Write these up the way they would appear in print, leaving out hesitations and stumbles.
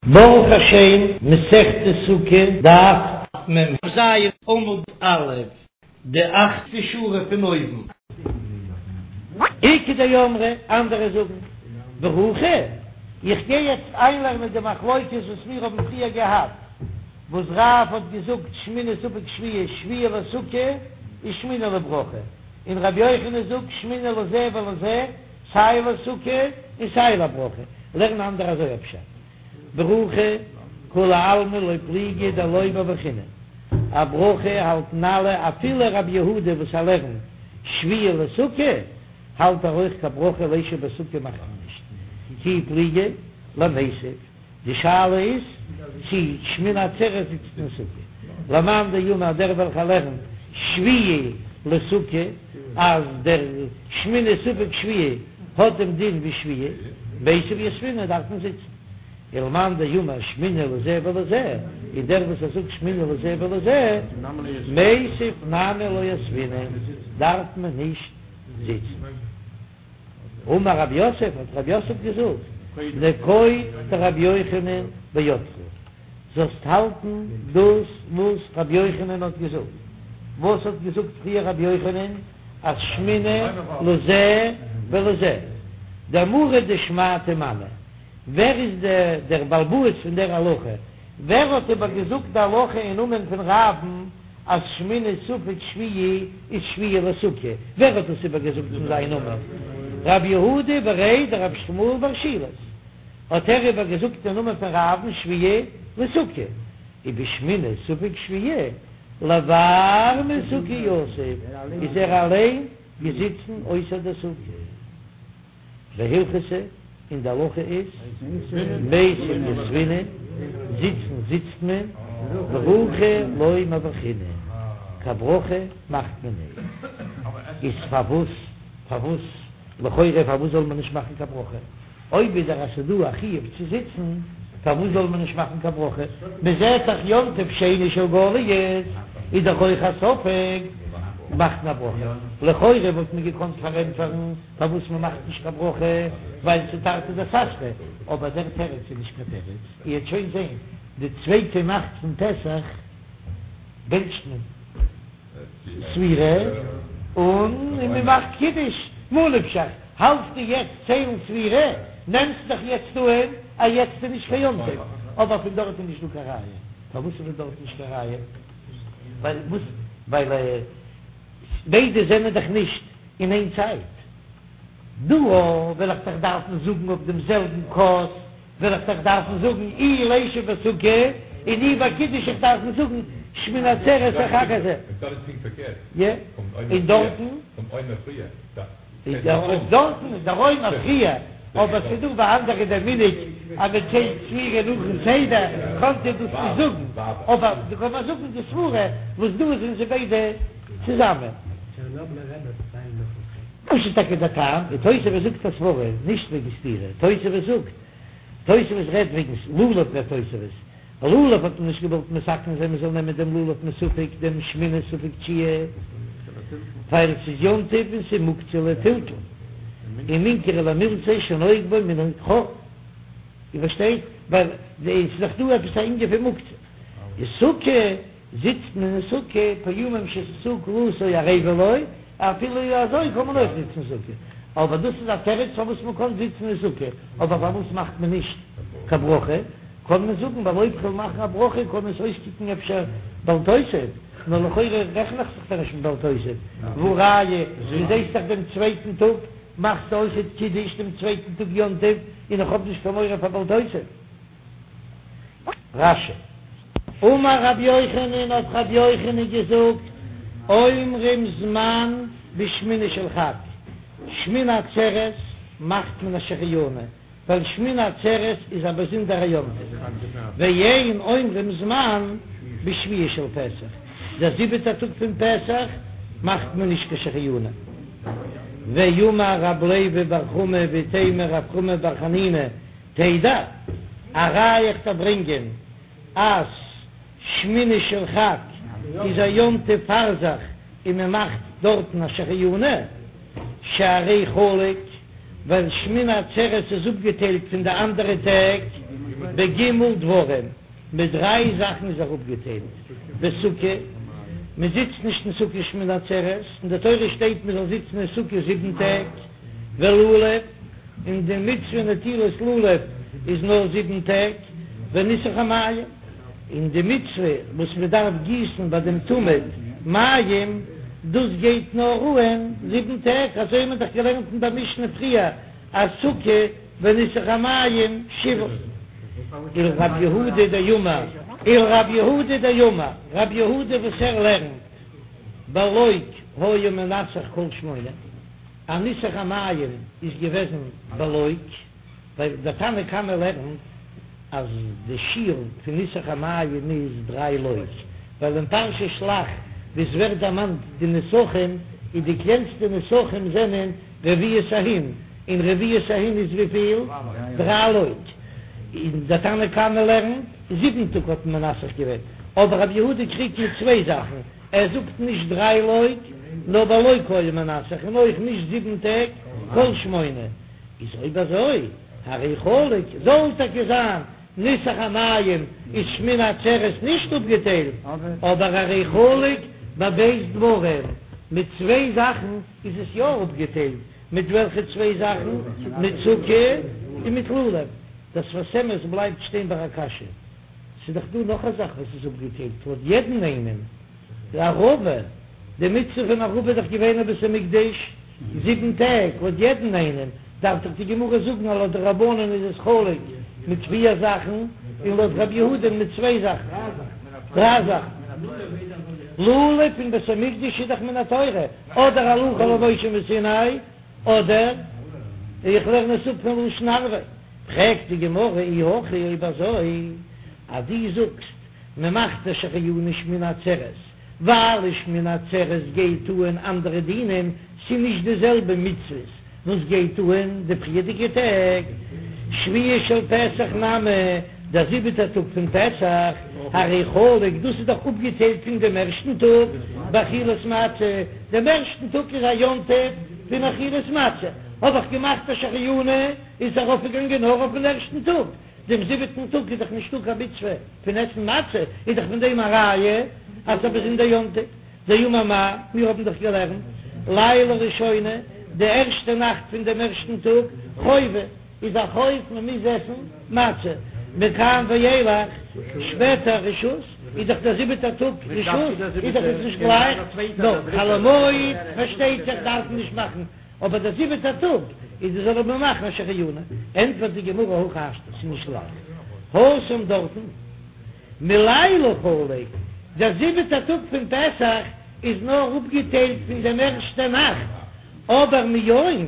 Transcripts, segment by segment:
ברוך השם, מסכת סוכה, דף מ"ז עמוד א', די אכטע שורה פון אויבן. איכא דאמרי, אנדערע זאגן, ברכה, איך גיי יעצט איינלערנען די מחלוקת וואס מיר האבן פריער געהאט, וואס רב האט געזאגט שמיני ספק שביעי שביעי לסוכה און שמיני לברכה, און רבי יוחנן זאגט שמיני לזה ולזה, סיי לסוכה און סיי לברכה, לערנען אנדערע אזוי א פשט. ברכה, כולי עלמא לא פליגי דלא מברכינן. א ברכה האלטן אלע אפילו רבי יהודה וואס ער לערנט שביעי לסוכה האלט ער אויך קיין ברכה לישב בסוכה מאכט מען נישט כי פליגי למיתב. די שאלה איז צי שמיני עצרת זיצט אין סוכה. למאן דאמר דער וועלכער לערנט שביעי לסוכה אז דער שמיני ספק שביעי האט דעם דין ווי שביעי, מיתב יתבינן דארף מען זיצן. ולמאן דאמר שמיני לזה ולזה, און דער וואס ער זאגט שמיני לזה ולזה, מיתב נמי לא יתבינן, דארף מען נישט זיצן. אמר רב יוסף, האט רב יוסף געזאגט, נקוט דרבי יוחנן בידך, זאלסט האלטן דאס וואס רבי יוחנן האט געזאגט. וואס האט געזאגט פריער רבי יוחנן? אז שמיני לזה ולזה. דמרא דשמעתא מני, ווער איז דער בעל הבית פון דער הלכה? ווער האט איבער געזאגט די הלכה אין נאמען פון רב'ן אז שמיני ספק שביעי איז שביעי לסוכה? ווער האט דאס איבער געזאגט אין זיין נאמען? רב יהודה בריה דרב שמואל בר שילת האט ער איבער געזאגט אין נאמען פון רב'ן שביעי לסוכה, ובשמיני ספק שביעי לבר מסוכה יתיב, איז ער אליין געזיצן אויסער די סוכה. והלכתא, און די הלכה איז, מיתב יתבינן, זיצן זיצט מען, ברכה לא מברכינן, קיין ברכה מאכט מען נישט. איז פארוואס, פארוואס, לכאורה פארוואס זאל מען נישט מאכן קיין ברכה? אויב איז דאך אז ס'איז דא א חיוב צו זיצן, פארוואס זאל מען נישט מאכן קיין ברכה? מען זעט דאך יום טוב שני של גליות איז דאך אויך א ספק, מאכט מען א ברכה. לכאורה וואלט מען געקאנט פארענטפערן פארוואס מען מאכט נישט קיין ברכה, ווייל ס'איז תרתי דסתרי, אבער דער תירוץ איז נישט קיין תירוץ, איר וועט שוין זען, די צווייטע נאכט פון פסח בענטשט מען ספירה און מען מאכט קידוש, מה נפשך האלטסטו יעצט ציילן ספירה, נעמסט דאך יעצט אהן אז יעצט איז נישט קיין יום טוב, אבער פון דארט איז נישט דא קיין ראיה, פארוואס איז פון דארט נישט קיין ראיה? ווייל וואס? ווייל ביידע זענען דאך נישט אין איין צייט. דא וועל איך דאך דארפן זאגן אויף דעם זעלבן כוס, וועל איך דאך דארפן זאגן אי לישב בסוכה און אי ביי קידוש איך דארפן זאגן שמיני עצרת החג הזה. יא, און דארטן? דארטן איז דער עומר פריער, אבער ס'איז דא ביי אנדערע דער מנהג אז מען ציילט ספירה נאכן סדר, קענט איר דאס נישט זאגן, אבער דא קען מען זאגן די סברה וואס דא זענען זיי ביידע צוזאמען. וואס איז טאקע דער טעם? און תוספות זאגט א סברה, נישט וועגן סתירה, תוספות זאגט, תוספות רעדט וועגן לולב רעדט תוספות, לולב האט מען נישט געוואלט מתקן זיין מען זאל נעמען דעם לולב מספק דעם שמיני ספק תשיעי, ווייל עס איז יום טוב און ס'איז מוקצה לטלטול, ומינכרא ליה מילתא שנוהג בו מנהג חול, איר פארשטייט? ווייל עס איז דאך דא עפעס א ענין פון מוקצה, אין סוכה זיצט מען אין סוכה פעמים שססו כלתו ערבה לו, אפילו אזוי קען מען אויך זיצן אין סוכה, אבער דאס איז א תירוץ פארוואס מען קען זיצן אין סוכה, אבער פארוואס מאכט מען נישט קיין ברכה? קען מען זאגן ווייל אויב כ'וועל מאכן א ברכה קען עס אויסקוקן אפשר בל תוסיף, נאר לכאורה רעכן איך זיך דאך נישט מיט בל תוסיף, והא ראיה דו זעסט דאך דעם צווייטן טאג מאכסטו אויכעט קידוש דעם צווייטן טאג יום טוב און איך האב נישט קיין מורא פאר בל תוסיף. רש"י. אמר רבי יוחנן האט רבי יוחנן געזאגט, אומרים זמן בשמיני של חג, שמיני עצרת מאכט מען א שהחיינו, ווייל שמיני עצרת איז א באזונדערע יום טוב, ואין אומרים זמן בשביעי של פסח, דער זיבעטער טאג פון פסח מאכט מען נישט קיין שהחיינו. ואמר רב לוי בר חמא ואיתימא רב חמא בר חנינא, תדע, א ראיה איך דיר ברענגען אז שמיני של חג איז א יום טוב פאר זיך און מען מאכט דארטן א שהחיינו, שהרי חלוק, ווייל שמיני עצרת איז אפגעטיילט פון די אנדערע טעג. בג' דברים, מיט דריי זאכן איז ער אפגעטיילט, בסוכה, מען זיצט נישט אין סוכה שמיני עצרת, אין די תורה שטייט מען זאל זיצן אין סוכה זיבן טעג, ולולב, און די מצוה נטילת לולב איז נאר זיבן טעג, וניסוך המים, און די מצוה וואס מען דארף גיסן ביי דעם תמיד מים, דאס גייט נאר אהן זיבן טעג, אזוי האט מען דאך געלערנט אין דער משנה פריער אז סוכה וניסוך המים שבעה. ולרב יהודה דאמר, ולרב יהודה דאמר, רב יהודה וואס ער לערנט בלוג היה מנסך כל שמונה, אז ניסוך המים איז געוועזן בלוג, ווייל דער תנא קמא לערנט אז די שיעור פון ניסוך המים איז דריי לוג, ווייל אין פרשת שלח וואו עס ווערט דערמאנט די נסכים איז די קלענסטע נסכים זענען רביעית ההין, און רביעית ההין איז וויפיל? דריי לוג. און דער תנא קמא לערנט זיבן טאג האט מען מנסך געווען, אבער רבי יהודה קריגט מיט צוויי זאכן, ער זאגט נישט דריי לוג, נאר בלוג היה מנסך, און אויך נישט זיבן טעג, כל שמונה. איז אויב אזוי, הרי חלוק, זאל טאקע זיין ניסוך המים איז שמיני עצרת נישט אפגעטיילט, אבער הרי חלוק בב' דברים, מיט צוויי זאכן איז עס יא אפגעטיילט, מיט וועלכע צוויי זאכן? מיט סוכה און מיט לולב. דער שפת אמת בלייבט שטיין ביי א קשיא, ס'איז דאך דא נאך א זאך וואס איז אפגעטיילט לויט יעדן איינעם, די ערבה, די מצוה פון ערבה איז דאך געווען אין בית המקדש זיבן טעג, לויט יעדן איינעם דארף דאך די גמרא זאגן אז לויט די רבנן איז עס חלוק מיט פיר זאכן, און לויט רבי יהודה מיט צוויי זאכן, דריי זאכן. לולב אין בית המקדש איז דאך מן התורה, אדער הלכה למשה מסיני, אדער איך לערן עס אפ פון לשון ערבה. פרעגט די גמרא אי הכי אויב אזוי אז דו זאגסט מען מאכט א שהחיינו שמיני עצרת ווייל אין שמיני עצרת גייט אהן אנדערע דינים, ס'איז נישט די זעלבע מצוות וואס גייט אהן די פריערדיגע טעג, שביעי של פסח נמי, דער זיבעטער טאג פון פסח, הרי חלוק, דאס איז דאך אפגעטיילט פון דעם ערשטן טאג באכילת מצה, דעם ערשטן טאג איז א יום טוב פון אכילת מצה, האב איך געמאכט א שהחיינו איז ארויפגעגאנגען נאר אויפן ערשטן טאג. דעם זיבעטן טאג איז דאך נישטא קיין מצוה פון עסן מצה, איז דאך פון דעם א ראיה אז ס'איז א באזונדער יום טוב. דאמר מר, מיר האבן דאך געלערנט לילה ראשונה, די ערשטע נאכט פון דעם ערשטן טאג, חובה, איז א חוב מען מוז עסן מצה, מכאן ואילך, שפעטער רשות, איז דאך דער זיבעטער טאג רשות, איז דאך עס נישט גלייך, נאר חול המועד פארשטייט זיך דארף מען נישט מאכן. אבער דער זיבעטער טאג איז די זאל מען מאכן א שהחיינו, ענטפערט די גמרא הכי השתא, ס'איז נישט גלייך התם דארטן מלילה חלוק, דער זיבעטער טאג פון פסח איז נאר אפגעטיילט פון דעם ערשטע נאכט, אבער מיום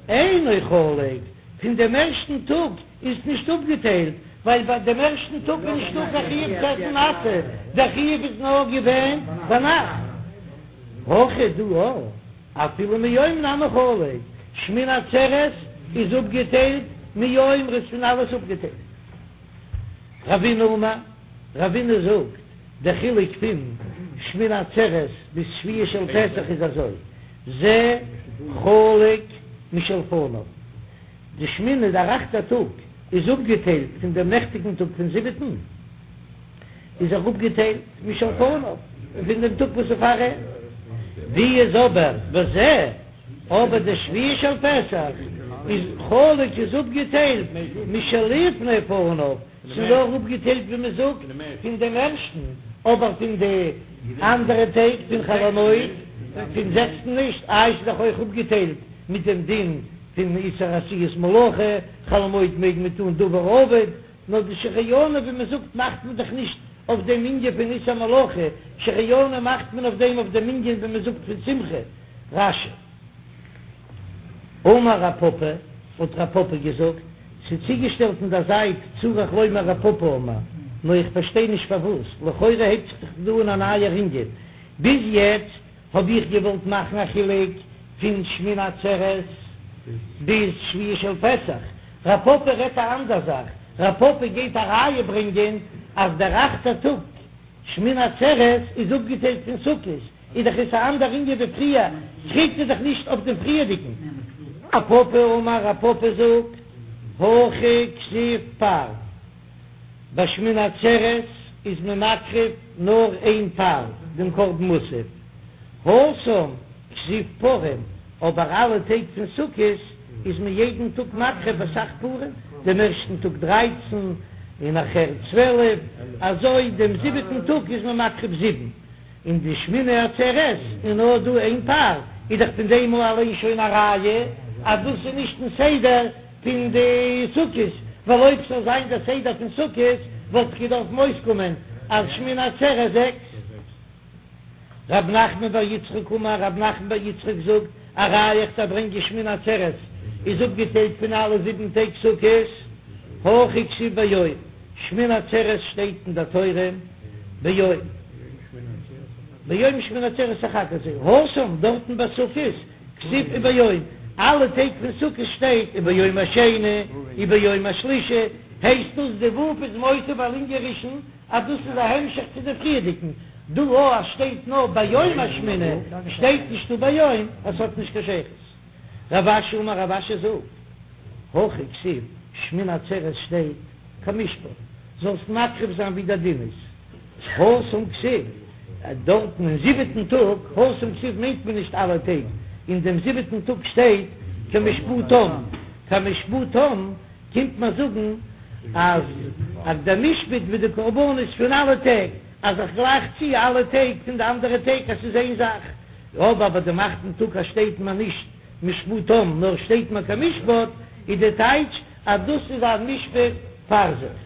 אינו חלוק, פון דעם ערשטן טאג איז נישט אפגעטיילט, ווייל ביי דעם ערשטן טאג איז נישטא קיין חיוב צו עסן מצה, דער חיוב איז נאר געווען ביינאכט. הכא דא אפילו מיום נמי חלוק, שמיני עצרת איז אפגעטיילט מיום ר'איז פון אלעס אפגעטיילט. רבינא אמר, רבינא זאגט, דער חילוק פון שמיני עצרת ביז שביעי של פסח איז אזוי, זה חלוק משלפניו, די שמיני דער אכטער טאג איז אפגעטיילט פון דעם נעכטיגן טאג פון זיבעטן, איז ער אפגעטיילט משלפניו פון דעם טאג וואס איז פאר אים, ווי איז אבער וזה, אבער די שביעי של פסח איז חלוק איז אפגעטיילט משלפני פניו, ס'איז נאר אפגעטיילט ווי מען זאגט פון דעם ערשטן, אבער פון די אנדערע טעג פון חול המועד פון זעקסטן נישט, איי ס'איז דאך אויך אפגעטיילט מיט דעם דין פון איסור עשיית מלאכה, חול המועד מעג מען טון דבר האבד. נאר די שהחיינו ווי מען זאגט מאכט מען דאך נישט אויף דעם ענין פון איסור מלאכה, שהחיינו מאכט מען אויף דעם אויף דעם ענין ווי מען זאגט פון שמחה. רש"י. אמר רב פפא, האט רב פפא געזאגט, ס'איז צוגעשטעלט אין דער זייט צריך לומר רב פפא אמר, נאר איך פארשטיי נישט פארוואס, לכאורה הייבט זיך דאך דא אן א נייער ענין, ביז יעצט האב איך געוואלט מאכן א חילוק פון שמיני עצרת ביז שביעי של פסח, רב פפא רעדט א אנדער זאך, רב פפא גייט א ראיה ברענגען אז דער אכטער טאג שמיני עצרת איז אפגעטיילט פון סוכות, איז דאך עס א אנדער ענין ווי פריער, קריגט ער דאך נישט אויף דעם פריערדיגן. רב פפא אמר רב פפא זאגט, הכא כתיב פר. ביי שמיני עצרת איז מען מקריב נאר איין פר, דעם קרבן מוסף, התם כתיב פרים, אבער אלע טעג פון סוכות איז מען יעדן טאג מקריב אסאך פרים, דעם ערשטן טאג דרייצן און נאכער 12, אזוי דעם זיבעטן טאג איז מען מקריב זיבן, און די שמיני עצרת איז נאר דא איין פר, איז דאך פון דעם אליין שוין א ראיה אז דאס איז נישט אין סדר פון די סוכות, ווייל אויב ס'זאל זיין דער סדר פון סוכות וואלט דאך געדארפן אויסקומען אז שמיני עצרת זעקס. רב נחמן בר יצחק אמר, רב נחמן בר יצחק זאגט, א ראיה איך דארף ברענגען שמיני עצרת איז אפגעטיילט פון אלע זיבן טעג סוכות, הכא כתיב ביום, שמיני עצרת שטייט אין דער תורה ביום, ביום שמיני עצרת החג הזה, התם דארטן ביי סוכות כתיב וביום, אלע טעג פון סוכות שטייט וביום השני וביום השלישי, הייסט דאס די ו' איז מוסיף על ענין ראשון אז דאס איז א המשך צו די פריערדיגן, דא אז שטייט נאר ביום השמיני, שטייט נישט וביום, אז ס'האט נישט קיין שייכות. רב אשי אמר רב אשי זאגט, הכא כתיב, שמיני עצרת שטייט כמשפט, זאלסט מקריב זיין ווי דער דין איז, התם כתיב, דארטן אין זיבעטן טאג, התם כתיב מיינט מען נישט אלע טעג, אין דעם זיבעטן טאג שטייט כמשפטם, כמשפטם קומט מען זאגן אז אז דער משפט ווי די קרבנות פון אלע טעג, אז איך גלייך צו אלע טעג פון די אנדערע טעג אז ס'איז איין זאך, אבער ביי דעם אכטן טאג אז שטייט מען נישט משפטם נאר שטייט מען כמשפט, איז די טייטש אז דאס איז א משפט פאר זיך.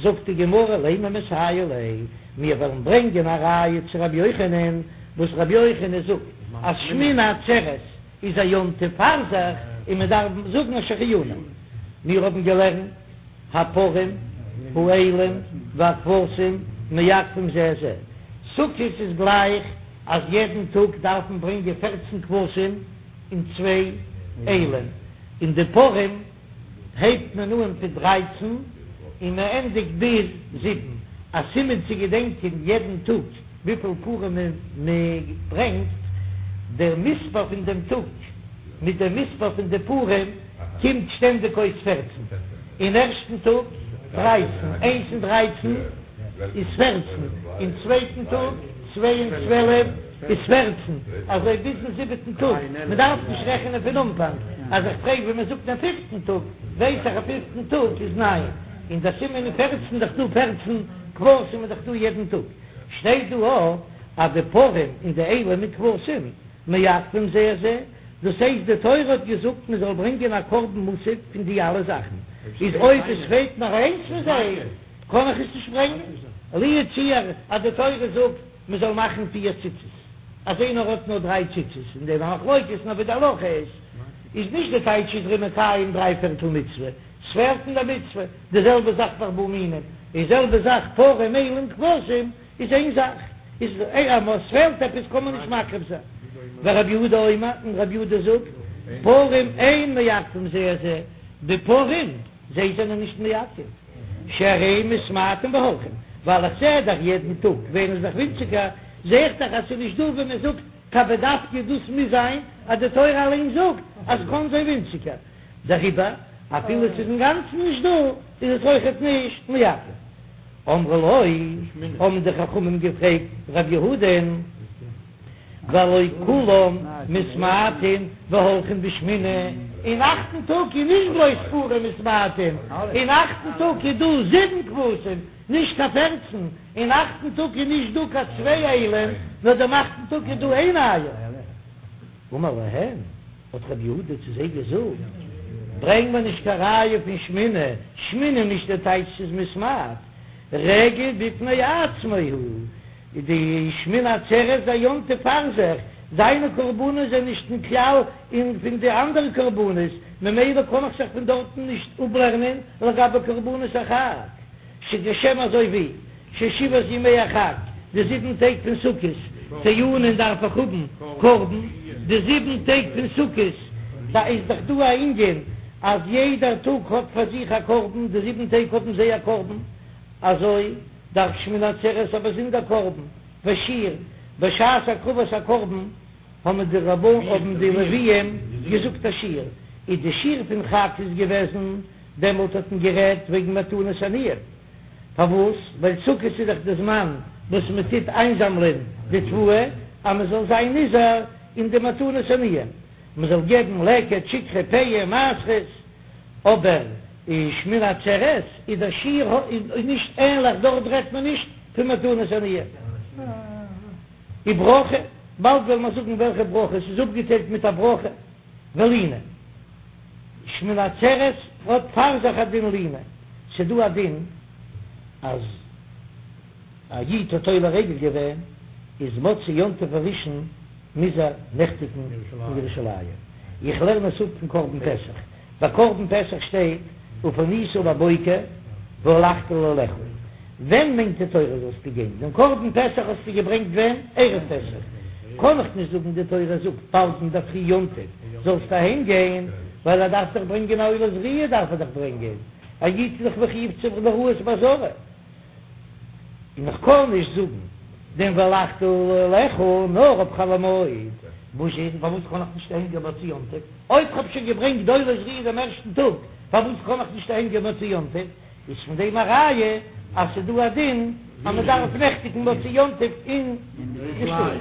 זאגט די גמרא לימא מסייע ליה, מיר וועלן ברענגען א ראיה צו רבי יוחנן, וואס רבי יוחנן זאגט אז שמיני עצרת איז א יום טוב פאר זיך און מען דארף זאגן א שהחיינו. מיר האבן געלערנט הפרים האילים והכבשים מעכבין זה את זה, סוכות איז גלייך אז יעדן טאג דארף מען ברענגען פערצן כבשים און צוויי אילים, און די פרים הייבט מען אן פון דרייצן און מען ענדיגט ביז זיבן, א סימן צו געדענקען יעדן טאג וויפיל פרים מען ברענגט, דער מספר פון דעם טאג מיט דעם מספר פון די פרים קומט שטענדיג אויס פערצן, אין ערשטן טאג דרייצן, איינס און דרייצן איז פערצן, אין צווייטן טאג צוויי און צוועלף איז פערצן, אזוי ביזן זיבעטן טאג, מען דארף נישט רעכענען פון אנפאנג, אז איך פרעג ווי מען זאגט דעם פיפטן טאג, ווייס איך אז פיפטן טאג איז ניין, און דער סימן איז פערצן, דאך דא פערצן כבשים איז דאך דא יעדן טאג, שטייט דא אויך אז די פרים און די אילים מיט כבשים מעכבים זה את זה, דאס הייסט די תורה האט געזאגט מען זאל ברענגען א קרבן מוסף פון די אלע זאכן, איז אויב עס פעלט נאר איינס פון זיי קען איך עס נישט ברענגען, לו יצוייר אז די תורה זאגט מען זאל מאכן פיר ציצית, אז איינער האט נאר דריי ציצית אין דעם א מחלוקת נאר ווי די הלכה איז, איז נישט די טייטש איז ער מקיים דריי פערטל מצוה, ס'פעלט אין די מצוה, די זעלבע זאך ביי ארבעה מינים, די זעלבע זאך פרים אילים כבשים איז איין זאך, איז אז ס'פעלט עפעס קען מען נישט מקריב זיין. ורבי יהודה אומר, און רבי יהודה זאגט, פרים אין מעכבים זה את זה, די פרים זיי זענען נישט מעכב, שהרי מתמעטין והולכין, ווייל איך זע דאך יעדן טאג ווערן זיי דאך ווינציגער, זע איך דאך אז ס'איז נישט דא ווען מען זאגט קיין בדווקא דאס מוז זיין אז די תורה אליין זאגט אז ס'קען זיין ווינציגער. דעריבער אפילו ס'איז אינגאנצן נישט דא איז עס אויכעט נישט מעכב. אמרו לו, האבן די חכמים געפרעגט ר' יהודה'ן, והלא כולם מתמעטין והולכין בשמיני, אין אכטן טאג איז נישט בלויז פרים מתמעטין, אין אכטן טאג איז דא זיבן כבשים, נישט קיין פערצן, אין אכטן טאג איז נישט דא קיין צוויי אילים, נאר דעם אכטן טאג איז דא איין איל. אמר להם, האט רבי יהודה צו זיי געזאגט, ברענג מיר נישט קיין ראיה פון שמיני, שמיני נישט די טייטש ס'איז מתמעט, רגל בפני עצמו הוא, די שמיני עצרת איז א יום טוב פאר זיך, זיינע קרבנות זענען נישט אין כלל אין פון די אנדערע קרבנות, ממילא קען איך זיך פון דארטן נישט אפלערנען לגבי קרבנות החג, שכשם אזוי ווי. ששבעת ימי החג, די זיבן טעג פון סוכות, טעונין דארף איך האבן קרבן, די זיבן טעג פון סוכות, דא איז דאך דא א ענין אז יעדער טאג האט פאר זיך א קרבן, די זיבן טעג האבן זיי א קרבן, אזוי דארף שמיני עצרת א באזונדער קרבן, ושיר, בשעת הקרבת הקרבן האבן די רבנן האבן די לוויים געזאגט א שיר, איז די שיר פון חג איז געוועזן, דעמאלט האט מען גערעדט וועגן מתנות עניים. פארוואס? ווייל סוכות איז דאך די זמן וואס מען טוט איינזאמלען די תבואה, אז מען זאל זיין נזהר אין די מתנות עניים, מען זאל געבן לקט, שכחה, פאה, מעשרות, אבער אין שמיני עצרת איז דער שיעור איז נישט ענליך, דארט רעדט מען נישט פון מתנות עניים. וברכה, באלד וועלן מיר זאגן וועלכע ברכה, עס איז אפגעטיילט מיט א ברכה ולינה. שמיני עצרת האט פאר זיך א דין לינה, ס'דא א דין אז א איד האט עולה רגל געווען, איז מוצאי יום טוב הראשון מוז ער נעכטיגן אין ירושלים, איך לערן עס אפ פון קרבן פסח, ביי קרבן פסח שטייט ופנית בבוקר והלכת לאהליך, ווען מיינט די תורה זאלסטו גיין? דעם קרבן פסח האסטו געברענגט ווען? ערב פסח, קען איך נישט זאגן די תורה זאגט באלד אינדערפרי יום טוב זאלסטו אהיים גיין, ווייל ער דארף דאך ברענגען א עולת ראיה דארף ער דאך ברענגען, א איד איז דאך מחויב צו לראות בעזרה. און איך קען נישט זאגן דעם והלכת לאהליך נאר אויף חול המועד, וואס איז פארוואס קען איך נישט אהיים גיין מוצאי יום טוב? אויב כ'האב שוין געברענגט די עולת ראיה דעם ערשטן טאג, פארוואס קען איך נישט אהיים גיין מוצאי יום טוב? איז פון דעם א ראיה אז ס'איז דא א דין אז מ'דארף נעכטיגן מוצאי יום טוב אין די שטאט.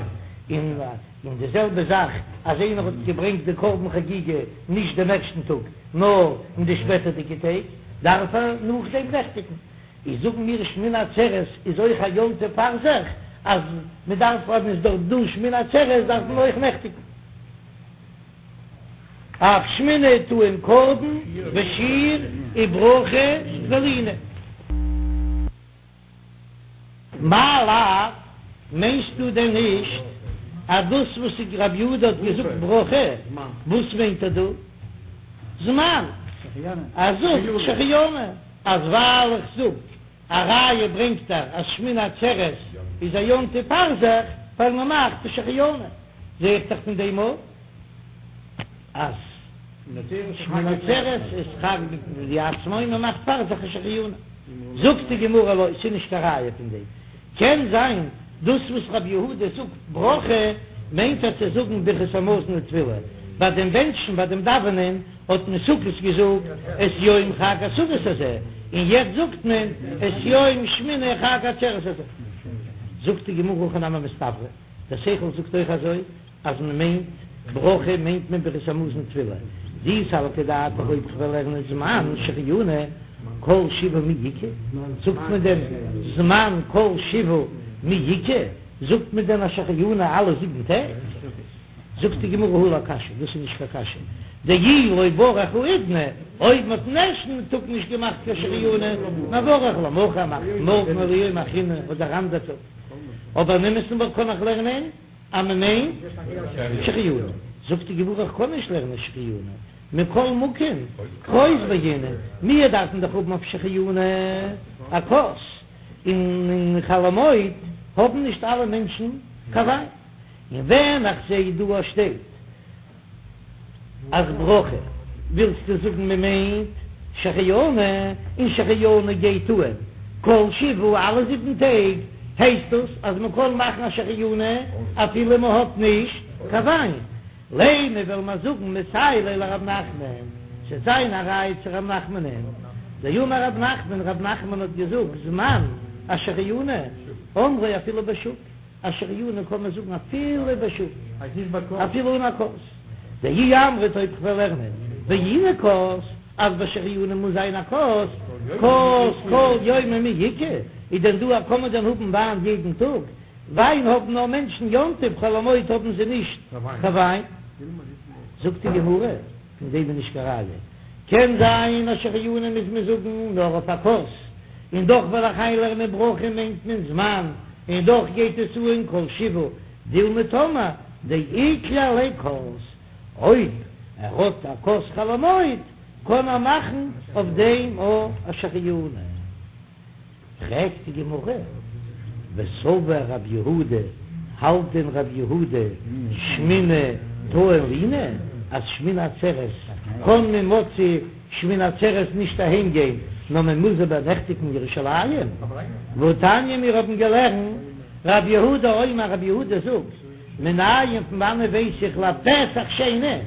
און די זעלבע זאך אז איינער האט געברענגט די קרבן חגיגה נישט דעם ערשטן טאג נאר אין די שפעטערדיגע טעג, דארף ער נאכדעם נעכטיגן. איז זאגן מיר שמיני עצרת איז אויך א יום טוב פאר זיך, אז מען דארף אז מען איז דארט דא שמיני עצרת דארף מען אויך נעכטיגן. אף שמיני טעון קרבן ושיר וברכה ולינה. מאי לאו, מיינסטו דען נישט אז דאס וואס רבי יהודה האט געזאגט ברכה, וואס מיינט ער דא? זמן, ער זאגט שהחיינו. אז ווייל איך זאג א ראיה ברענגט ער אז שמיני עצרת איז א יום טוב פאר זיך ווייל מען מאכט שהחיינו, זע איך דאך פון דעם אויך אז שמיני עצרת איז חג בפני עצמו און מען מאכט פאר זיך א שהחיינו. זאגט די גמרא לא, ס'איז נישט קיין ראיה פון דעם. קען זיין דאס וואס רבי יהודה זאגט ברכה מיינט ער צו זאגן ברכת המזון ותפילה ביי דעם בענטשן ביי דעם דאווענען האט מען סוכות געזאגט את יום חג הסוכות הזה און יעצט זאגט מען את יום שמיני חג העצרת הזה. זאגט די גמרא הכי נמי מסתברא, דער שכל זאגט אויך אזוי אז מען מיינט ברכה מיינט מען ברכת המזון ותפילה, דאי סלקא דעתך אויב כ'וועל לערנען זמן שהחיינו כל שבעה מי איכא, זאגט מען דען זמן כל שבעה מי איכא, זאגט מען דען א שהחיינו אלע זיבן טעג? זאגט די גמרא הא לא קשיא, דאס איז נישט קיין קשיא, דאי לא ברך האידנא, אויב מען האט אין ערשטן טאג נישט געמאכט קיין שהחיינו, מברך למחר מאכט מארגן או ליומא אחרינא אדער אנדער טאג, אבער אין אמת'ן וואלט קען איך לערנען אז מען מיינט שהחיינו, זאגט די גמרא איך קען נישט לערנען שהחיינו, מכל מקום כוס בעינן, מיר דארפן דאך האבן אויף שהחיינו א כוס, און אין חול המועד האבן נישט אלע מענטשן קיין וויין. און ווען איך זעה דא א שטייט אז ברכה ווילסטו זאגן מען מיינט שהחיינו און שהחיינו גייט אן כל שבעה אלע זיבן טעג הייסט דאס אז מען קען מאכן א שהחיינו אפילו מען האט נישט קיין וויין לימא וועל מיר זאגן מסייע ליה לרב נחמן ס'וועט זיין א ראיה צו רב נחמנ'ן דאמר רב נחמן רב נחמן האט געזאגט זמן שהחיינו אומרו אפילו בשוק. א שהחיינו קען מען זאגן אפילו בשוק, אפילו אן א כוס. דאי אמרת אויב כ'וועל לערנען בעינן כוס, אז ביי שהחיינו מוז זיין א כוס, כוס כל יומא מי איכא, איז דען דא א קען מען דען האבן וויין יעדן טאג? וויין האבן נאר מענטשן יום טוב, חול המועד האבן זיי נישט קיין וויין. זאגט די גמרא, פון דעם איז נישט קיין ראיה. קען זיין אז שהחיינו מוז מען זאגן נאר אויף א כוס, און דאך וועל איך איינלערנען ברכה מיינט מען זמן, און דאך גייט עס אן כל שבעה דילמא טאמער דאיקלע ליה כוס, אויב ער האט א כוס חול המועד קען ער מאכן אויף דעם א שהחיינו. פרעגט די גמרא, וסבר רב יהודה, האלט דען רב יהודה שמיני טעון לינה, אז שמיני עצרת קען מען מוצאי שמיני עצרת נישט אהיים גיין, נאר מען מוז איבערנעכטיגן אין ירושלים? והתניא מיר האבן געלערנט, רב יהודה אומר רב יהודה זאגט, מנין פון וואנען ווייס איך לפסח שני,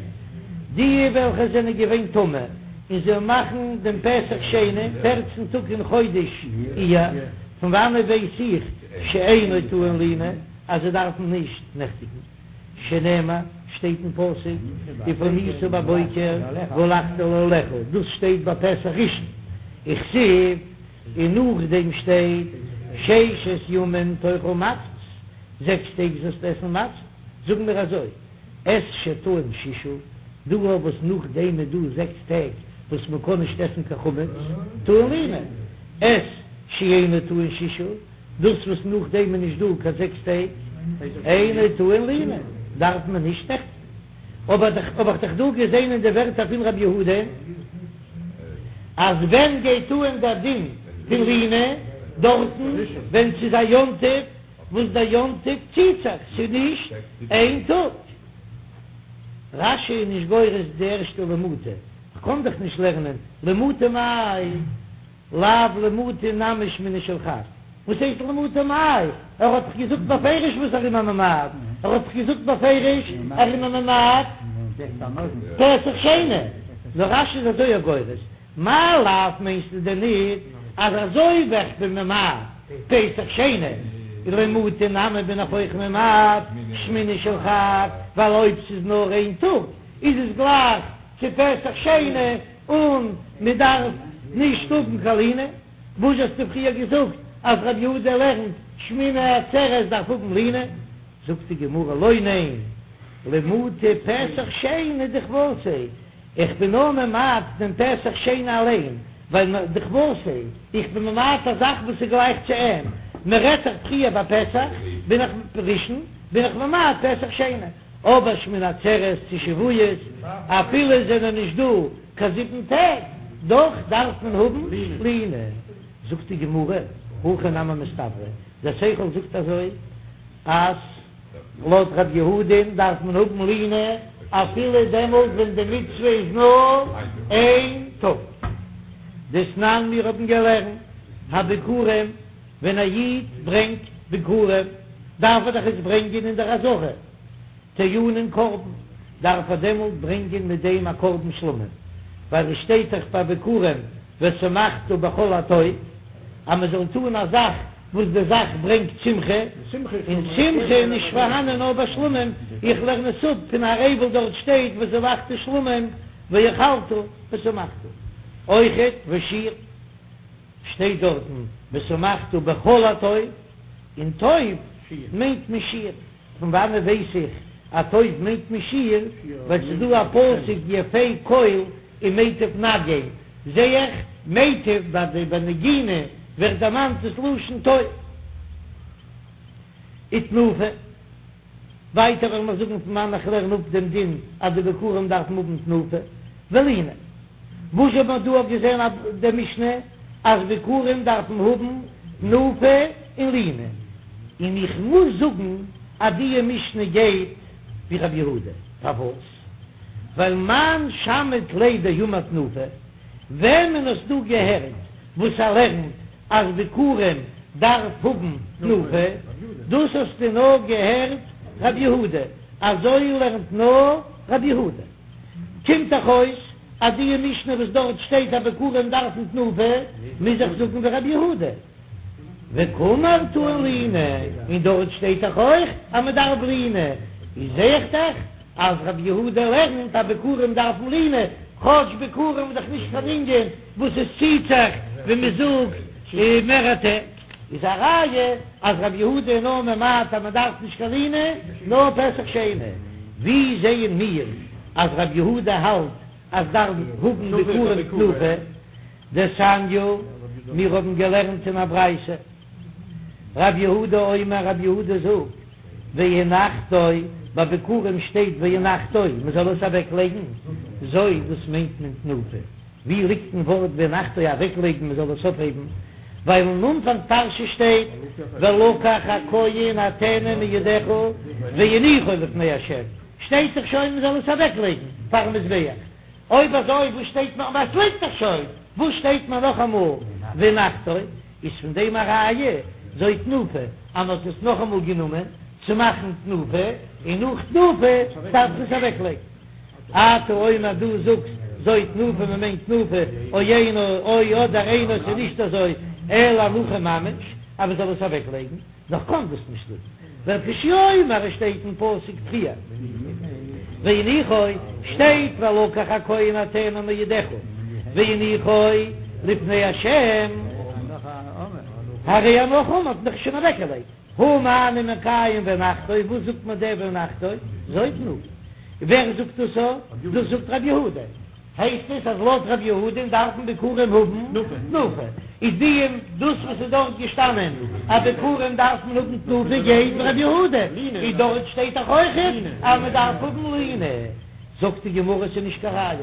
די וועלכע זענען געווען טמא. און זיי מאכן דעם פסח שני פערצן טאג אין חודש אייר, פון וואנעט ווייס איך שאינו טעון לינה אז זיי דארפן נישט נעכטיגן? שנאמר, שטייט אין פסוק, ופנית בבוקר והלכת לאהליך, דאס שטייט ביי פסח ראשון, וכתיב, און נאכדעם שטייט ששת ימים תאכל מצות, זעקס טעג זאלסטו עסן מצה, זאגן מיר אזוי, את שטעון ששה, דא וואס נאכדעם איז דא זעקס טעג וואס מען קען נישט עסן קיין חמץ, טעון לינה, את שאינו טעון ששה, דאס וואס נאכדעם איז נישט דא קיין זעקס טעג, אינו טעון לינה, דארף מען נישט נעכטיגן. אבער האב איך דאך דא געזען אין די ווערטער פון רבי יהודה, אז ווען גייט אן דער דין פון לינה, דארטן ווען ס'איז א יום טוב, וואס דער יום טוב ציט זיך, ס'איז נישט איין טאג. רש"י איז נישט גורס די ערשטע למעוטי, כ'קען דאך נישט לערנען למעוטי מאי, לאו למעוטי נמי שמיני של חג. וואס הייסט למעוטי מאי? ער האט דאך געזאגט בפירוש וואס ער איז ממעט, ער האט דאך געזאגט בפירוש ער איז ממעט פסח שני. נאר רש"י איז אזוי גורס, מאי לאו מיינסטו דען ניט אז אזוי ווי איך בין ממעט פסח שני, למעוטי נמי בין איך אויך ממעט שמיני של חג, ווייל אויב ס'איז נאר איין טאג איז עס גלייך צו פסח שני און מ'דארף נישט האבן קיין לינה. וואס האסטו פריער געזאגט אז רבי יהודה לערנט שמיני עצרת דארף האבן לינה? זאגט די גמרא לא ניין, למעוטי פסח שני דכוותיה, איך בין נאר ממעט דעם פסח שני אליין, ווייל דכוותיה, איך בין ממעט א זאך וואס איז גלייך צו אים, מען רעדט זיך פריער ביי פסח, בין איך ראשון, בין איך ממעט פסח שני, אבער שמיני עצרת צו שבועות, אפילו עס זענען נישט דא קיין זיבן טעג, דאך דארף מען האבן לינה. זאגט די גמרא, הכי נמי מסתברא, דער שכל זאגט אזוי, אז לויט ר' יהודה'ן דארף מען האבן לינה אפילו דעמאלט ווען די מצוה איז נאר איין טאג. דתנן מיר האבן געלערנט הביכורים, ווען א איד ברענגט ביכורים דארף ער דאך עס ברענגען אין דער עזרה, טעונין קרבן, דארף ער דעמאלט ברענגען מיט דעם א קרבן שלמים, ווייל עס שטייט דאך ביי ביכורים ושמחת בכל הטוב, אז מען זאל טון א זאך וואס די זאך ברענגט שמחה, און שמחה איז נישט פארהאנען נאר ביי שלמים, איך לערן עס אפ פון הר עיבל דארט שטייט וזבחת שלמים ואכלת ושמחת, אויכעט ושיר שטייט דארטן ושמחת בכל הטוב, און טוב מיינט מען שיר. פון וואנעט ווייס איך אז טוב מיינט מען שיר? ווייל ס'איז דא א פסוק יפה קול ומטיב נגן, זעה איך מיטב ביי די ביי נגינה ווערט דערמאנט דאס לשון טוב. ותנופה. ווייטער וועל מיר זאגן פון וואנען איך לערן אפ דעם דין אז די ביכורים דארפן האבן תנופה ולינה. וואס האט מען דא געזען אין די משנה אז ביכורים דארפן האבן תנופה און לינה, און איך מוז זאגן אז די משנה גייט ווי רבי יהודה, פארוואס? ווייל מאן שמעת ליה דאמר תנופה, וועמען האסטו געהערט וואס ער לערנט אז ביכורים דארף האבן תנופה, דאס האסטו נאר געהערט רבי יהודה, אזוי לערנט נאר רבי יהודה. קומט דאך אויס אז די משנה וואס דארט שטייט אז ביכורים דארפן תנופה, מוז איך זאגן ווי רבי יהודה. וקאמר טעון לינה, און דארט שטייט דאך אויך אז מען דארף לינה, איז זע איך דאך אז רבי יהודה לערנט אז ביכורים דארפן לינה, כאטש ביכורים איז דאך נישט קיין ענין וואס עס ציט זיך ווי מען זאגט מערערע טעג. איז א ראיה אז רבי יהודה איז נאר ממעט אז מען דארף נישט קיין לינה נאר פסח שני, ווי זעען מיר אז רבי יהודה האלט אז דארף האבן ביכורים תנופה? דתניא, מיר האבן געלערנט אין א ברייתא, רבי יהודה אומר רבי יהודה זאגט, והנחתו, ביי ביכורים שטייט והנחתו, מען זאל עס אוועק לייגן, זו דאס מיינט מען תנופה. ווי ליגט אין ווארט והנחתו אוועקלייגן מען זאל עס אויפהייבן, ווייל אין אנפאנג פרשה שטייט ולקח הכהן הטנא מידך והניחו לפני ה', שטייט דאך שוין מען זאל עס אוועקלייגן פארן מזבח, אויב אזוי וואס שטייט נאך עס ליגט דאך שוין, וואס שטייט מיר נאכאמאל והנחתו, איז פון דעם א ראיה זו תנופה אז מען האט עס נאכאמאל גענומען צו מאכן תנופה, און נאך תנופה דארף מען עס אוועקלייגן. אתה אומר דו זאגסט. זו תנופה מען מיינט תנופה, או אינו, או אדער אינו ס'איז נישט אזוי, אלא הנחה ממש, אז מען זאל עס אוועק לייגן, נאר כ'קען דאס נישט זאגן, ווייל כשהוא אומר עס שטייט אין פסוק פריער והניחו, שטייט ולקח הכהן הטנא מידך והניחו לפני השם, הרי הנחה אמור האט מען דאך שוין אוועק געלייגט, הא מה אני מקיים והנחתו, וואס זאגט מען דער והנחתו? זו תנופה, ווער זאגט דאס א? דאס זאגט רבי יהודה. הייסט עס אז לויט רבי יהודה'ן דארפן ביכורים האבן תנופה, איז די דאס וואס איז דארט געשטאנען אז ביכורים דארף מען האבן תנופה גייט ווי רבי יהודה, איז דארט שטייט דאך אויכעט אז מען דארף האבן לינה, זאגט די גמרא ס'איז נישט קיין ראיה,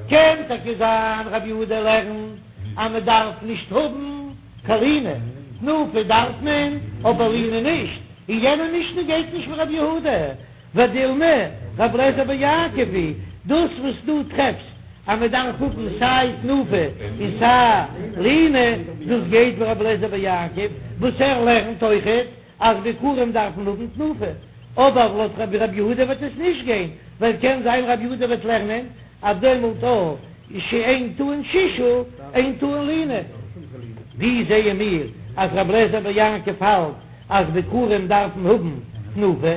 קען טאקע זיין רבי יהודה לערנט אז מען דארף נישט האבן קיין לינה, תנופה דארף מען אבער לינה נישט, און יענע משנה גייט נישט ווי רבי יהודה. ודילמא, רבי אליעזר בן יעקב היא, דאס וואס דו טרעפסט אז מען דארף האבן סיי תנופה און סיי לינה, דאס גייט ווי רבי אליעזר בן יעקב וואס ער לערנט אויכעט אז ביכורים דארף מען האבן תנופה, אבער לויט רבי יהודה וועט עס נישט גיין, ווייל קען זיין רבי יהודה וועט לערנען אז דעמאלט אויך שאין טעון ששה אין טעון לינה. ווי זעען מיר אז רבי אליעזר בן יעקב האלט אז ביכורים דארפן האבן תנופה?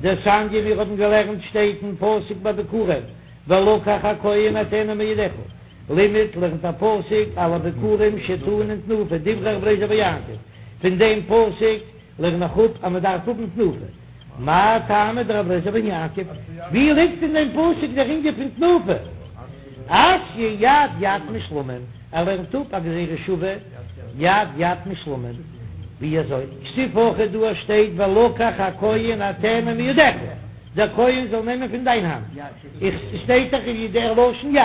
דתניא מיר האבן געלערנט שטייט אין פסוק ביי ביכורים ולקח הכהן הטנא מידך, לימד לערנט א פסוק על הביכורים שטעונין תנופה דברי רבי אליעזר בן יעקב, פון דעם פסוק לערן איך אפ אז מען דארף האבן תנופה, מאי טעמא דרבי אליעזר בן יעקב, ווי ליגט אין דעם פסוק דער ענין פון תנופה? אתיא יד יד משלמים, ער לערנט אפ א גזירה שווה יד יד משלמים, ווי אזוי? כתיב הכא דא שטייט ולקח הכהן הטנא מידך, דער כהן זאל נעמען פון דיין האנט, איך ס'שטייט דאך אין דער לשון יד,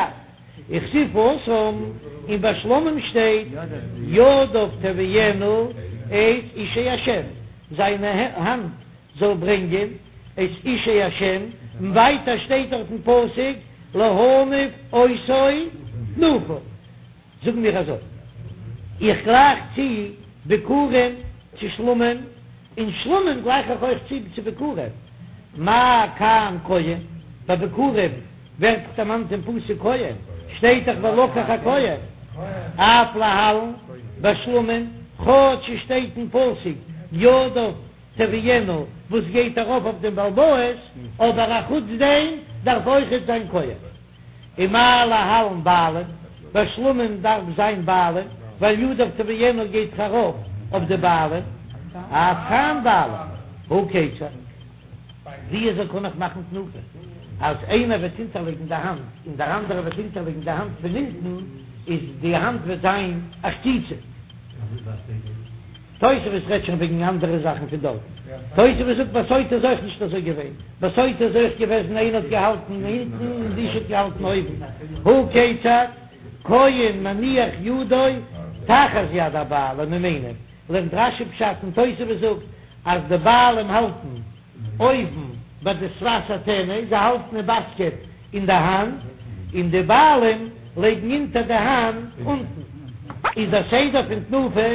וכתיב התם, און ביי שלמים שטייט ידיו תביאינה את אישי השם, זיינע האנט זאל ברענגען את אישי השם, און ווייטער שטייט דארט אין פסוק להניף אותו תנופה. זאגן מיר אזוי, איך גלייך צו ביכורים צו שלמים, און שלמים גלייך איך אויך צו צו ביכורים, מה כאן כהן, ביי ביכורים ווערט דאך דערמאנט אין פסוק כהן, שטייט דאך ולקח הכהן, אף להלן בשלמים, כאטש עס שטייט אין פסוק ידיו תביאינה וואס גייט ארויף אויף דעם בעל הבית, אבער אחוץ דעם דארף אויכעט זיין כהן. ומה להלן בעלים, ביי שלמים דארף זיין בעלים, ווייל ידיו תביאינה גייט דאך ארויף אויף די בעלים, אף כאן בעלים, הא כיצד? ווי אזוי קען איך מאכן תנופה אז איינער וועט אונטערלייגן די האנט און דער אנדערער וועט אונטערלייגן די האנט פון אונטן, איז די האנט וועט זיין א חציצה? תוספות רעדט שוין וועגן אנדערע זאכן פון דארטן. תוספות זאגט ביי סוטה איז אויך נישט אזוי געווען, ביי סוטה איז אויך געוועזן איינער האט געהאלטן אונטן און די אשה האט געהאלטן אויבן. הא כיצד, כהן מניח ידו תחת יד הבעלים ומניף, לערנט רש"י פשט און תוספות זאגט אז די בעלים האלטן. אויבן ביי די שפת הטנא, זיי האלטן די באסקעט אין די האנט, און די בעלים לייגן אונטער די האנט אונטן. איז דער סדר פון תנופה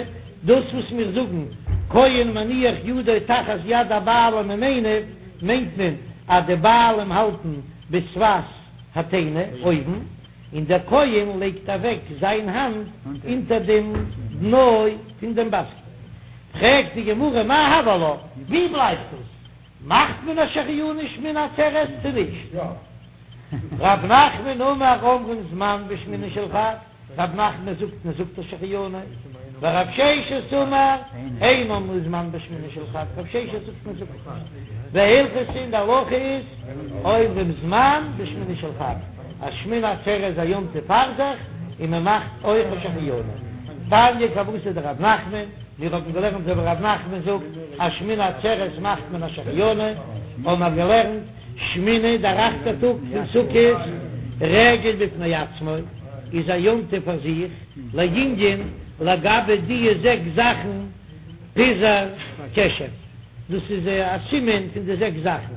דאס וואס מיר זאגן כהן מניח ידו תחת יד הבעלים ומניף, מיינט מען אז די בעלים האלטן בשפת הטנא אויבן, און דער כהן לייגט אוועק זיין האנט אונטער דעם דנא פון דעם באסקעט. פרעגט די גמרא מאי הוי עלה, ווי בלייבט דאס? מאכט מען א שהחיינו שמיני עצרת צו נישט? רב נחמן אמר אומרים זמן בשמיני של חג, רב נחמן זאגט מען זאגט א שהחיינו, ורב ששת אמר אין אומרים זמן בשמיני של חג, רב ששת זאגט מען זאגט נישט, והלכתא און די הלכה איז אומרים זמן בשמיני של חג, אז שמיני עצרת איז א יום טוב פאר זיך און מען מאכט אויך א שהחיינו. תניא כוותיה דרב נחמן, מיר האבן געלערנט אזוי ווי רב נחמן זאגט אז שמיני עצרת מאכט מען א שהחיינו, האבן מיר געלערנט שמיני דער אכטער טאג פון סוכות רגל בפני עצמו איז א יום טוב פאר זיך, לענין לגבי די זעקס זאכן פיזור קשת, דאס איז א סימן פון די זעקס זאכן,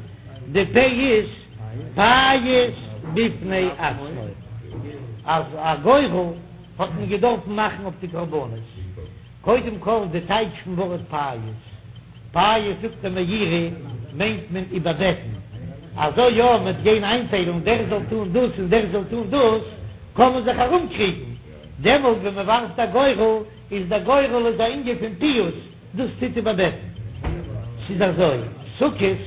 די פ' איז פייס בפני עצמו, אז א גורל האט מען געדארפן מאכן אויף די קרבנות, קודם כל די טייטש פון ווארט פייס, פייס זאגט דער מאירי מיינט מען איבערבעטן, אזוי יא מ'וועט גיין איינטיילן דער זאל טון דאס און דער זאל טון דאס. קען מען זיך ארומקריגן, דעמאלט ווען מען ווארפט א גורל, איז דער גורל איז א ענין פון פיוס, דאס טוט איבערבעטן. ס'איז אזוי, סוכות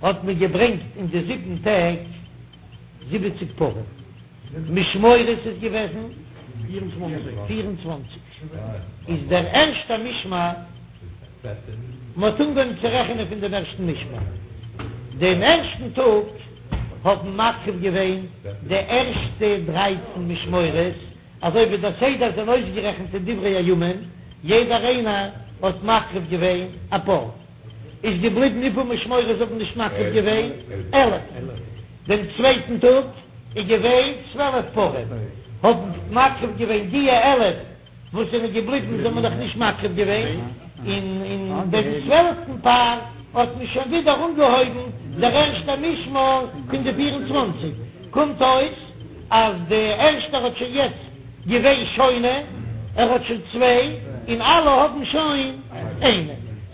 האט מען געברענגט אין די זיבן טעג זיבעציג פרים, משמורות איז געוועזן 24, איז דער ערשטער משמר, מען האט אנגעהויבן צו רעכענען פון דעם ערשטן משמר, דעם ערשטן טאג האבן מקריב געווען די ערשטע דרייצן משמורות, אזוי ווי דער סדר זענען אויסגערעכנט אין דברי הימים, יעדער איינער האט מקריב געווען א פר, איז געבליבן וויפיל משמורות האבן נישט מקריב געווען? 11. דעם צווייטן טאג איז געווען צוועלף פרים, האבן מקריב געווען דיע 11 וואס זענען געבליבן זיי האבן נאך נישט מקריב געווען, און אין דעם צוועלפטן פר האט מען שוין ווידער אנגעהויבן דער ערשטער משמר פון די 24, קומט אויס אז די ערשטער האט שוין יעצט געווען שונה, ער האט שוין צוויי, און אלע האבן שוין איינע.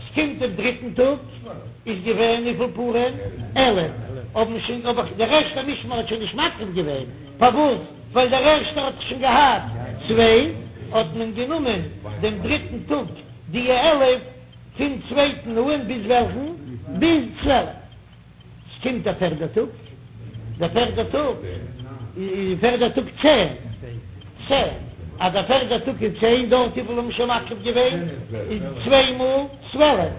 ס'קומט דעם דריטן טאג איז געווען וויפיל פרים? 11, האבן שוין, אבער דער ערשטער משמר האט שוין נישט מקריב געווען, פארוואס? ווייל דער ערשטער האט שוין געהאט צוויי, האט מען גענומען דעם דריטן טאג די 11 פון צווייטן אן ביז וועלכן? ביז צוועלף. ס'קומט דער פערדער טאג, דער פערדער טאג איז פערדער טאג צען, צען, אז דער פערדער טאג איז צען, דארט וויפיל האבן שוין מקריב געווען? איז צוויי מאל צוועלף,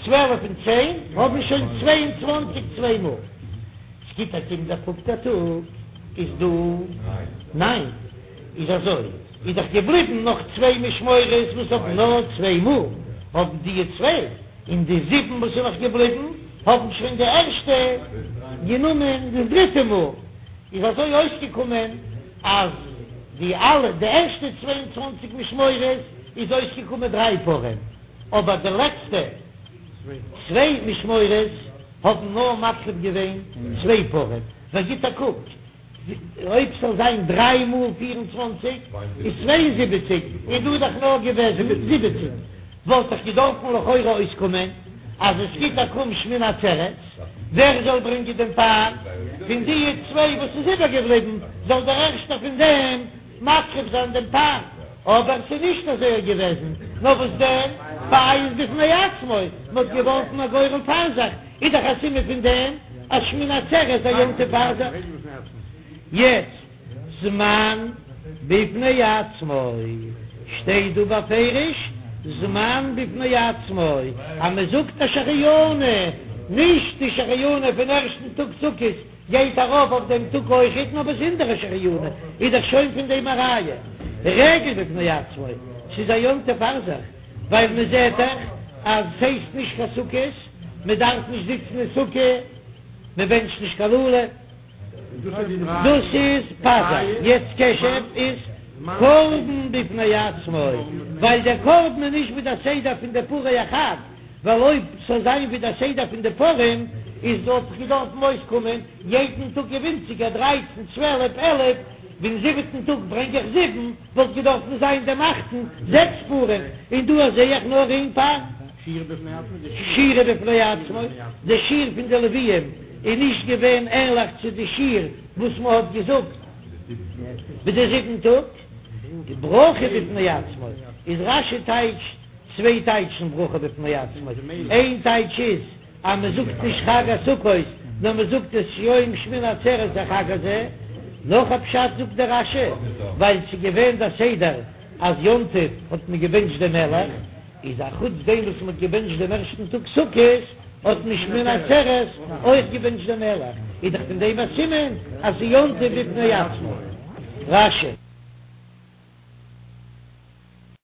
צוועלף און צען האבן שוין צוויי און צוואנציג צוויי מאל. ס'גיט א קום דער פופטער טאג איז דא ניין, איז אזוי איז דאך געבליבן נאך צוויי משמורות וואס האבן נאר צוויי מאל, האבן דיע צוויי און די זיבן וואס איז נאך געבליבן האבן שוין די ערשטע גענומען די דריטע מאל, איז אזוי אויסגעקומען אז די אלע די ערשטע 22 משמורות איז אויסגעקומען דריי פרים, אבער די לעצטע צוויי משמורות האבן נאר מקריב געווען צוויי פרים, ווער גיט א קוק אויב ס'זאל זיין דריי מאל 24 איז 72, און דא איז דאך נאר געוועזן זיבעציק, וואלט דאך געדארפן לכאורה אויסקומען אז עס גיט א קום שמיני עצרת, ווער זאל ברענגען דעם פר? פון די צוויי וואס איז איבערגעבליבן זאל דער ערשטער פון דעם מקריב זיין דעם פר, אבער ס'איז נישט אזוי געוועזן, נאר וואס דען, פיוס בפני עצמו, מ'האט געווארפן א גורל פאר זיך, איז דאך א סימן פון דעם אז שמיני עצרת איז א יום טוב פאר זיך. יעצט, זמן בפני עצמו, שטייט דא בפירוש זמן בפני עצמו, אז מ'זאגט א שהחיינו, נישט די שהחיינו פון ערשטן טאג סוכות, גייט ארויף אויף דעם טאג אויכעט נאר באזונדערע שהחיינו איז דאך שוין פון דעם א ראיה רגל בפני עצמו ס'איז א יום טוב פאר זיך ווייל מען זעט דאך אז ס'הייסט נישט קיין סוכות מען דארף נישט זיצן אין סוכה מען בענטשט נישט קיין לולב דאס איז פז"ר יעצט קשב איז קרבן בפני עצמו ווייל דער קרבן איז נישט ווי דער סדר פון די פרי החג. ווייל אויב ס'זאל זיין ווי דער סדר פון די פרים איז וואלט דאך געדארפן אויסקומען יעדן טאג ווינציגער דרייצן צוועלף עלף, ווען זיבעטן טאג ברענג איך זיבן וואלט געדארפן זיין דעם אכטן זעקס פרים, און דא זעה איך נאר איין פר. שירה בפני עצמו, די שיר פון די לוויים איז נישט געווען ענליך צו די שיר וואס מען האט געזאגט ביי די זיבן טאג. ברכה בפני עצמו איז רש"י טייטשט. צוויי טייטשן ברכה בפני עצמו, איין טייטש איז אז מען זאגט נישט חג הסוכות נאר מען זאגט את יום שמיני עצרת החג הזה, נאך א פשט זאגט דער רש"י ווייל ס'איז געווען דער סדר אז יום טוב האט מען געבענטשט דעם מלך, איז א חוץ דעם וואס מען האט געבענטשט דעם ערשטן טאג סוכות האט מען שמיני עצרת אויך געבענטשט דעם מלך, איז דאך פון דעם א סימן אז ס'איז יום טוב בפני עצמו. רש"י.